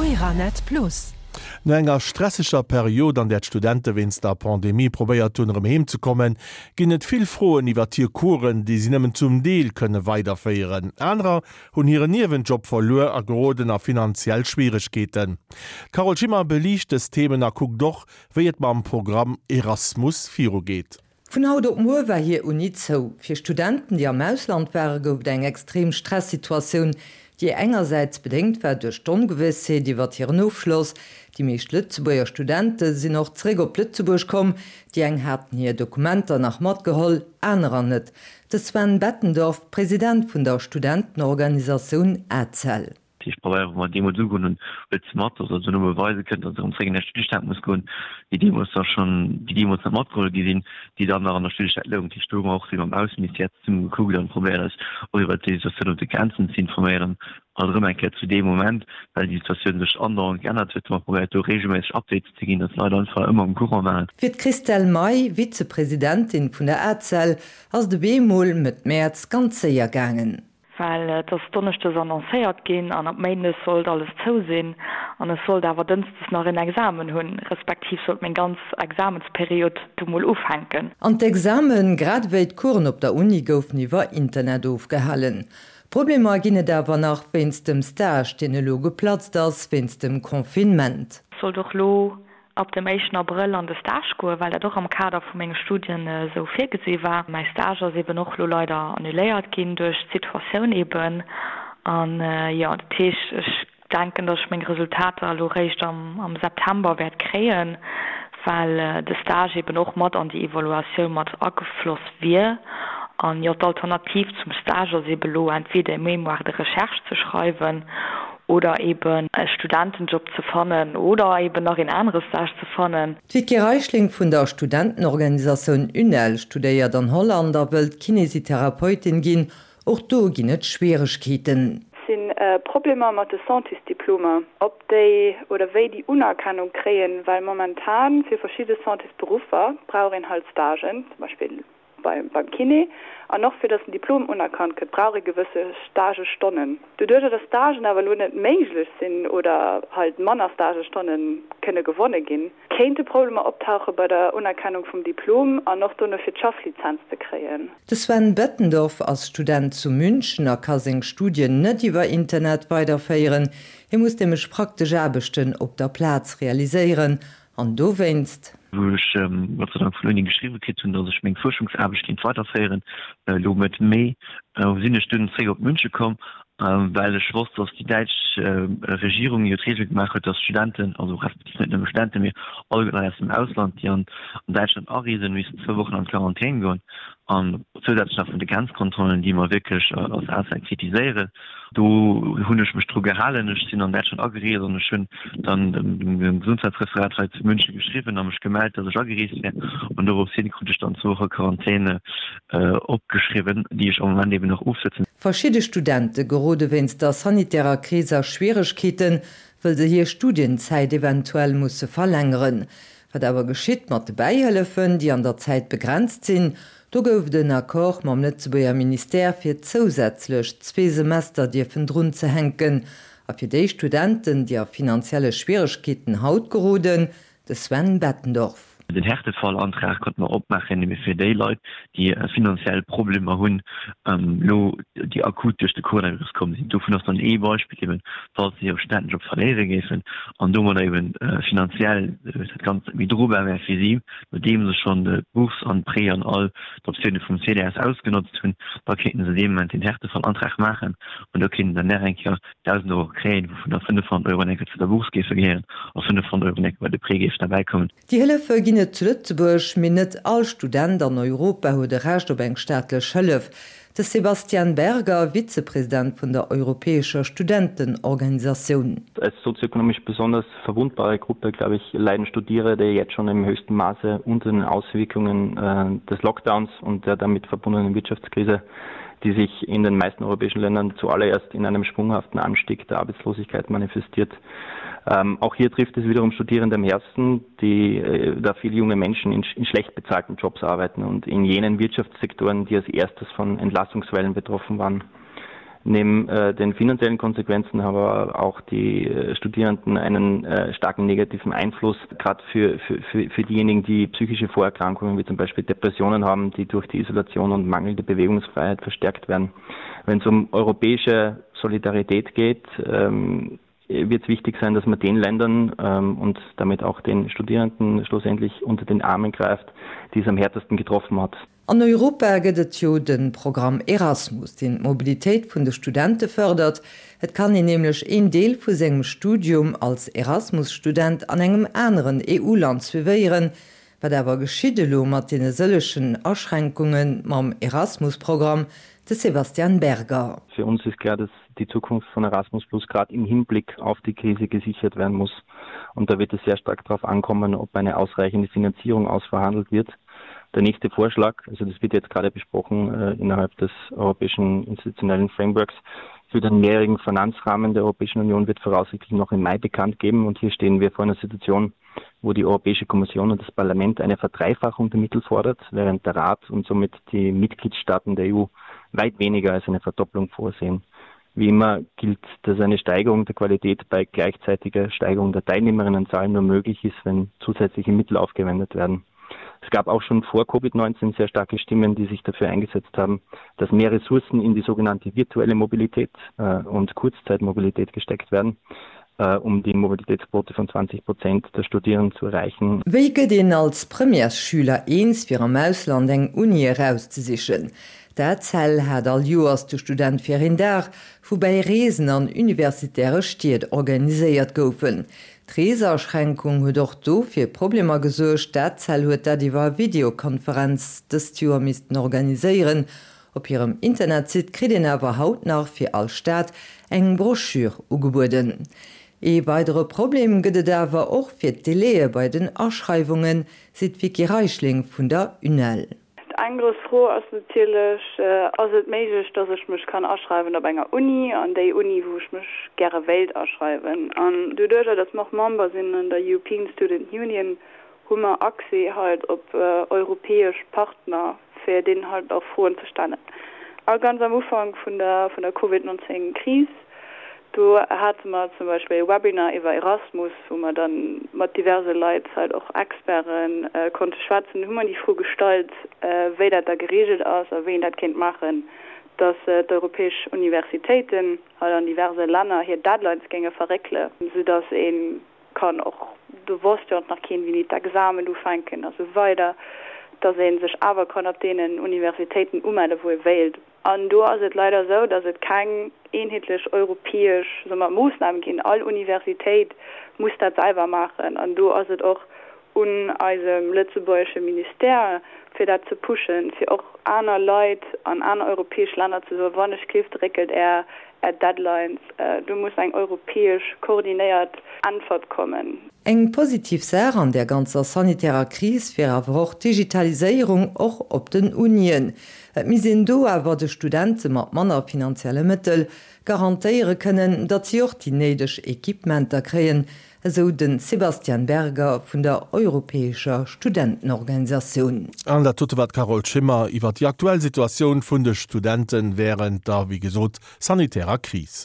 Euranet Plus. No enger stresseger Period, an där d'Studente wéinst der Pandemie probéiert hunn, erëm heem ze kommen, ginn et vill Froen iwwert hir Coursen, déi si nëmmen zum Deel kënne weiderféieren. Anerer hunn hiren Niewenjob verluer a geroden a finanziell Schwieregkeeten. D'Carole Schimmer beliicht dës Themen a kuckt och, wéi et mam Programm Erasmus virugeet. Vun haut op muer war hir Uni zou. Fir Studenten, déi am Ausland waren, gouf et eng extrem Stressituatioun, déi engersäits bedéngt war duerch d'Ongewëssheet iwwert hiren Ofschloss. Déi meescht Lëtzebuerger Studente sinn och zeréck op Lëtzebuerg komm. Déi eng haten hir Dokumenter nach matgeholl, anerer net. De Sven Bettendorf, President vun der Studentenorganisatioun ACEL. Dat heescht, Pabeier, wou mer deemools ugoen hunn, huet se mat, dass se dono beweise kënnt, dass se erëm zréck an hir Studiestad muss goen, déi deemools da schonn, déi deemools net matgeholl gi sinn, déi dann nach an der Studiestad louchen. Dat heescht, do hu mer och vill mam Ausseministère zesumme gekuckt an probéiert eis och iwwert déi Situatioun op de Grenzen ze informéieren. Alt erëm eng Kéier zu deem Moment, well déi Situatioun sech andauernd geännert huet, hu mer probéiert do reegelméisseg Updates ze ginn, dass d'Leit einfach ëmmer um Courant waren. Fir d'Christelle May, Vizepresidentin vun der ACEL, ass et op eemol Mëtt Mäerz ganz séier gaangen. Well et ass donneschdes annoncéiert ginn an ab méindes sollt alles zou sinn an ech sollt awer dënschdes nach en Examen hunn, respektiv sollt meng ganz Examensperiod du mol ufänken. An d'Examen, grad ewéi d'Coursen op der Uni goufen iwwer Internet ofgehalen. Problemer ginn et awer nach wéinst dem Stage, deen elo geplatzt ass wéinst dem Confinement. Sollt och lo ab dem éischten Abrëll an de Stage goen, well dat och am Kader vu menge Studien esou virgesi war. Mäi Stage ass eben och elo leider annuléiert ginn duerch d'Situatioun eben. An jo, dat heescht, ech denken, datt ech meng Resultater elo réischt am September wäert kréien, well de Stage eben och mat an déi Evaluatioun mat agefloss wier. An jo, d'Alternativ zum Stage ass eben elo entweder e Mémoire de recherche ze schreiwen oder eben e Studentenjob ze fannen oder eben nach een anere Stage ze fannen. D'Vicky Reichling vun der Studentenorganisatioun UNEL studéiert an Holland a wëllt Kinesitherapeutin ginn. Och do ginn et Schwieregkeeten. Et si Problemer mat de Santésdiplomer, ob déi oder wéi déi Unerkennung kréien, well momentan fir verschidde Santésberuffer brauch een halt Stagen, zum Beispill beim Kiné, an och fir datt den Diplom unerkannt gëtt, brauch ee gewësse Stagestonnen. Doduercher datt Stagen awer elo net méiglech sinn oder halt manner Stagestonne kënne gewonne ginn, kéinte Problemer optauche bei der Unerkennung vum Diplom an och dono fir d'Schafflizenz ze kréien. De Sven Bettendorf ass Student zu München a ka seng Studien net iwwer Internet weiderféieren. Hie muss nämlech praktesch Aarbechten op der Plaz realiséieren An dowéinst. Wou ech Gott sei Dank vun der Uni geschriwwe kritt hunn, datt ech meng Fuerschungsaarbecht kéint weiderféieren, elo Mëtt Mee, sinn ech dunn zréck op Münche komm, well ech wosst, datt déi däitsch Regierung jo d'Reegel gemaach huet, datt Studenten, also respektiv net nëmme Studenten, mee alleguer Leit aus dem Ausland, déi an Däitschland areesen, missen zwou Wochen an d'Quarantän goen. An zousätzlech nach vun de Grenzkontrollen, déi mer wierklech als ACEL kritiséieren. Do hunn ech mech dru gehalen. Ech sinn an Däitschland agereest an ech hunn dann dem Gesundheitsreferat hei zu München geschriwwen a mech gemellt, dass ech agereest wär. An dorops hin krut ech dann zwou Woche Quarantäne opgeschriwwen, déi ech am Moment eben nach ofsëtzen. Verschidde Studente gerode wéinst der sanitärer Kris a Schwieregkeeten, wëll se hir Studienzäit eventuell musse verlängeren. Wat awer geschitt mat de Bäihëllefen, déi an der Zäit begrenzt sinn? Do gouf et en Accord mam Lëtzebuerger Ministère, fir zousätzlech zwee Semester dierfen drunzehänken. A fir déi Studenten, déi a finanzielle Schwieregkeeten haut geroden, de Sven Bettendorf. Den Härtefallantrag konnte mer opmaachen, ebe fir déi Leit, déi finanziell Problemer hunn, elo déi akut duerch de Coronavirus komm sinn. Dovun ass dann ee Beispill eben, falls se hire Studentenjob verléiere géifen an domadder eben finanziell dat Ganzt net méi drobar wär fir si, nodeem se schonn d'Bourse an d'Prêt an all d'Optioune vum CDS ausgenotzt hunn, da kéinten se dee Moment den Härtefallantrag maachen an do kéinten se dann nach eng Kéier 1.000 Euro kréien, wouvun da 500 Euro enke zu der Bourse géife gehéieren a 500 Euro enke bei de Prêt géifen derbäikommen. Déi Hëllefe ginn et zu Lëtzebuerg, mee net all Student an Europa huet e Recht op eng staatlech Hëllef. De Sebastian Berger, Vizepresident vun der europäescher Studentenorganisatioun. Als sozioökonomisch besonders verwundbare Gruppe, glaube ich, leiden Studierende jetzt schon im höchsten Maße unter den Auswirkungen des Lockdowns und der damit verbundenen Wirtschaftskrise, die sich in den meisten europäischen Ländern zuallererst in einem sprunghaften Anstieg der Arbeitslosigkeit manifestiert. Ähm, auch hier trifft es wiederum Studierende am Herzen, die äh, da viele junge Menschen in, in schlecht bezahlten Jobs arbeiten und in jenen Wirtschaftssektoren, die als erstes von Entlassungswellen betroffen waren. Neben äh, den finanziellen Konsequenzen haben aber auch die äh, Studierenden einen äh, starken negativen Einfluss, gerade für, für, für, für diejenigen, die psychische Vorerkrankungen wie zum Beispiel Depressionen haben, die durch die Isolation und mangelnde Bewegungsfreiheit verstärkt werden. Wenn es um europäische Solidarität geht, ähm, wird es wichtig sein, dass man den Ländern ähm, und damit auch den Studierenden schlussendlich unter den Armen greift, die es am härtesten getroffen hat. An Europa gëtt et jo de Programm Erasmus, deen d'Mobilitéit vun de Studente fërdert. Et kann een nämlech een Deel vu sengem Studium als Erasmus-Student an engem aneren EU-Land suivéieren. Wat awer geschitt elo mat deene sëllegen Aschränkunge mam Erasmus-Programm? De Sebastian Berger. Fir uns ist klar, dass die Zukunft von Erasmus Plus gerade im Hinblick auf die Krise gesichert werden muss. Und da wird es sehr stark darauf ankommen, ob eine ausreichende Finanzierung ausverhandelt wird. Der nächste Vorschlag, also das wird jetzt gerade besprochen äh, innerhalb des europäischen institutionellen Frameworks, für den mehrjährigen Finanzrahmen der Europäischen Union wird voraussichtlich noch im Mai bekannt geben. Und hier stehen wir vor einer Situation, wo die Europäische Kommission und das Parlament eine Verdreifachung der Mittel fordert, während der Rat und somit die Mitgliedstaaten der EU weit weniger als eine Verdopplung vorsehen. Wie immer gilt, dass eine Steigerung der Qualität bei gleichzeitiger Steigerung der Teilnehmerinnenzahl nur möglich ist, wenn zusätzliche Mittel aufgewendet werden. Es gab auch schon vor Covid-19 sehr starke Stimmen, die sich dafür eingesetzt haben, dass mehr Ressourcen in die sogenannte virtuelle Mobilität äh, und Kurzzeitmobilität gesteckt werden, äh, um die Mobilitätsquote von 20 Prozent der Studierenden zu erreichen. Wéi gëtt een als Premièresschüler eens fir am Ausland eng Uni erauszesichen? D'ACEL hat all Joers de Student fir een Dag, woubäi Reesen an universitäre Stied organiséiert goufen. D'Reesaschränkung huet och do fir Problemer gesuergt. D'ACEL huet dat iwwer Videokonferenz dëst Joer missten organiséieren. Op hirem Internetsite kritt een awer haut nach fir all Stad eng Broschür ugebueden. Ee weidere Problem gëtt et awer och fir d'Délaië bei den Aschreiwungen, seet d'Vicky Reichling vun der UNEL. Eng grouss Fro ass natierlech, Ass et méiglech, dass ech mech kann aschreiwen op enger Uni, an déi Uni, wou ech mech gäre wéilt aschreiwen? An doduerjer, dass mer och Member sinn an der European Student Union, hu mer Accès halt op europäesch Partner, fir deenen halt och Froen ze stellen. A ganz am Ufank vun der vun der Covid 19 Kris, do hate mer zum Beispill e Webinar iwwer Erasmus, wou mer dann mat diverse Leit, halt och Experten, konnte schwätzen. Do hu mer déi Fro gestallt, wéi dat da gereegelt ass a wéi een dat kéint maachen, dass d'europäesch Universitéiten halt an diverse Länner hir Deadlines géinge verréckele, soudass ee kann och, do wosst jo nach keen wéini d'Examen ufänken a sou weider, dass ee sech awer kann op deenen Universitéiten umelle wou ee wéilt. An do ass et leider esou, dass et keng eenheetlech europäesch, soe mer, Moossnam ginn. All Universitéit muss dat selwer maachen an do ass et och un eisem lëtzebuergesche Ministère fir dat ze pushen, fir och aner Leit an aner europäesch Länner ze soen, wann ech gleeft, réckelt Är Är Deadlines. Do muss eng europäesch koordinéiert Äntwert kommen. Eng positiv Saach an där ganzer sanitärer Kris wier awer och d'Digitaliséierung, och op den Unien. Et misst een do awer de Studente mat manner finanzielle Mëttel garantéiere kënnen, datt si och déi néideg Equipementer kréien, esou de Sebastian Berger vun der europäescher Studentenorganisatioun. An dat dote war d'Carole Schimmer iwwer déi aktuell Situatioun vun de Studente wärend der, wéi gesot, sanitärer Kris.